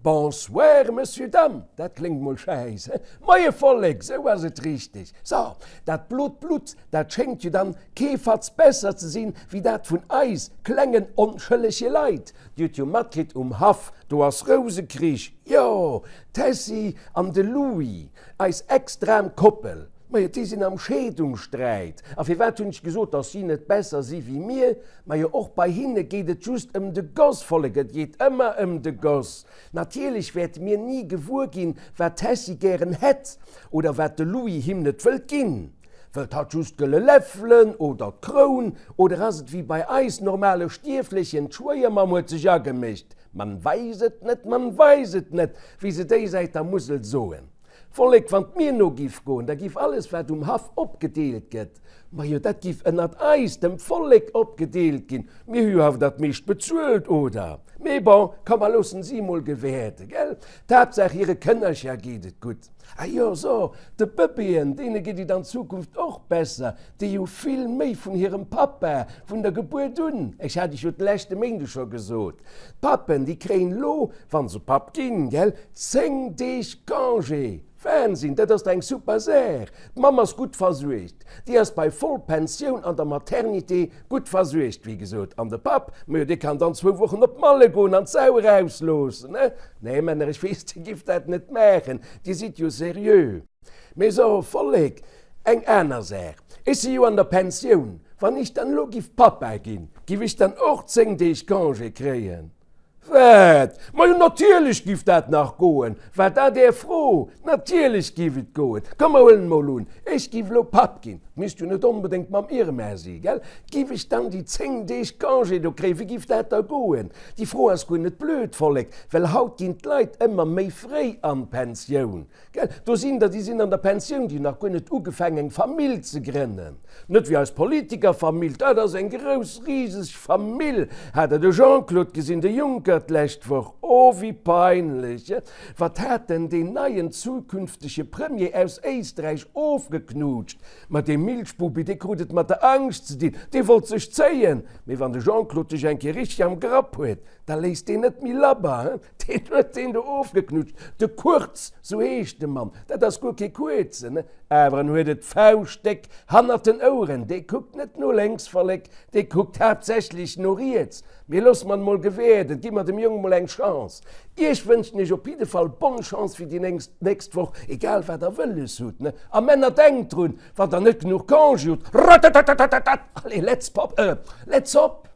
Bonsoir, Monsieur, Dame, dat kléngt mol schäiss, he? Moie Vollek, sou ass et richteg. So, dat blot Blutt, dat schéngt jo dann kee Fatz besser ze sinn, wéi dat vun eis klengen onschëllege Leit. Dir hutt jo matkritt, um Haff, do ass Rousekrich, jo, d'Tessy an de Louis, eis extram Koppel, majo, déi sinn am Scheedungssträit. A firwat hunn ech gesot, dass si net besser si wéi mir? Majo, och bei hinne geet et just ëm de Goss, Vollek, et geet ëmmer ëm de Goss. Natierlech wäerte mir ni gewuer ginn, wat d'Tessy gären hätt oder wat de Louis him net wëllt ginn. Wëllt hatt just gëlle Läffelen oder d'Kroun? Oder ass et wéi bei eis normale Stierflechen, d'Schwéiermamm huet sech agemécht, man weis et net, man weis et net, wéi se déi Säit der Musel soen. Vollek, wann 't mir no giff goen, da giff alles wat um Haff opgedeelt gëtt, majo dat giff ënnert eis, dem Vollek, opgedeelt ginn. Mir hu jo awer dat meescht bezuelt, oder? Mee bon, komm mer loossen si emol gewäerden, gell? D'Haaptsaach hire Kënnercher geet et gutt. Ah jo, so, de Bëbeeën, deene geet et an Zukunft och besser, déi hu vill méi vun hirem Pappa vun der Gebuert un. Ech hat iech jo de leschte Méinde scho gesot, d'Pappen, déi kréien elo, wa se Papp ginn, gell, 10 Deeg Congé. Wahnsinn, dat ass dach eng super Saach. D'Mamm ass gutt versuergt, déi ass bei Vollpensioun an der Maternité gutt versuergt, wéi gesot. An de Papp, majo, dee kann dann zwou Wochen op Malle goen an d'Sau erausloossen, ne? Nee, Männer, ech weess, Dir gifft dat net maachen, Dir sidd jo seriö. Mee so, Vollek, eng aner Saach, Ech si jo an der Pensioun, wann ech dann elo giff Pappa ginn, giff ech dann och 10 Deeg Congé kréien? Wat? Majo natierlech giff dat nach goen! War dat Är Fro? Natierlech giff et goen! Komm mer huelen emol un, ech giff elo Papp ginn, misst jo net onbedéngt mam Irma si, gell? Giff ech dann déi 10 Deeg Congé do kréien? Wéi giff dat da goen? Déi Fro ass guer net blöd, Vollek, well haut ginn d'Leit ëmmer méi fréi an d'Pensioun. Gell, do sinn der, déi sinn an der Pensioun, déi hunn nach guer net ugefaangen, eng Famill ze grënnen. Net wéi eis Politikerfamill, dat ass eng grouss, riseg Famill. Hat Der de Jean-Claude gesinn, de Juncker, d'lescht Woch? Oh, wéi peinlech! Wat hat en deen neien zukünftege Premier aus Éisträich ofgeknutscht? Ma dee Milchbubi, dee krut et mat der Angscht ze dinn, dee wollt sech zéien. Mee wann de Jean-Claude dech eng Kéier richteg am Grapp huet, da léisst deen net méi labber, he? Deen huet deen do ofgeknutscht, de Kurz, sou heescht de Mann, dat ass guer kee Kuerzen, awer en huet et fauschtdéck hannert den Oueren, dee kuckt net no lénks, Vollek, dee kuckt haaptsächlech no riets. Mee loosse mer en mol gewäerden, gi mer dem Jong mol eng Chance. Iech wënschen ech op jidde Fall bonne Chance fir déi nächst Woch, egal wat der wëlles hutt, ne? A Männer, denkt drun, wann der net genuch Congé hutt, ratatatatatatat, allez, let's pop, let's hop!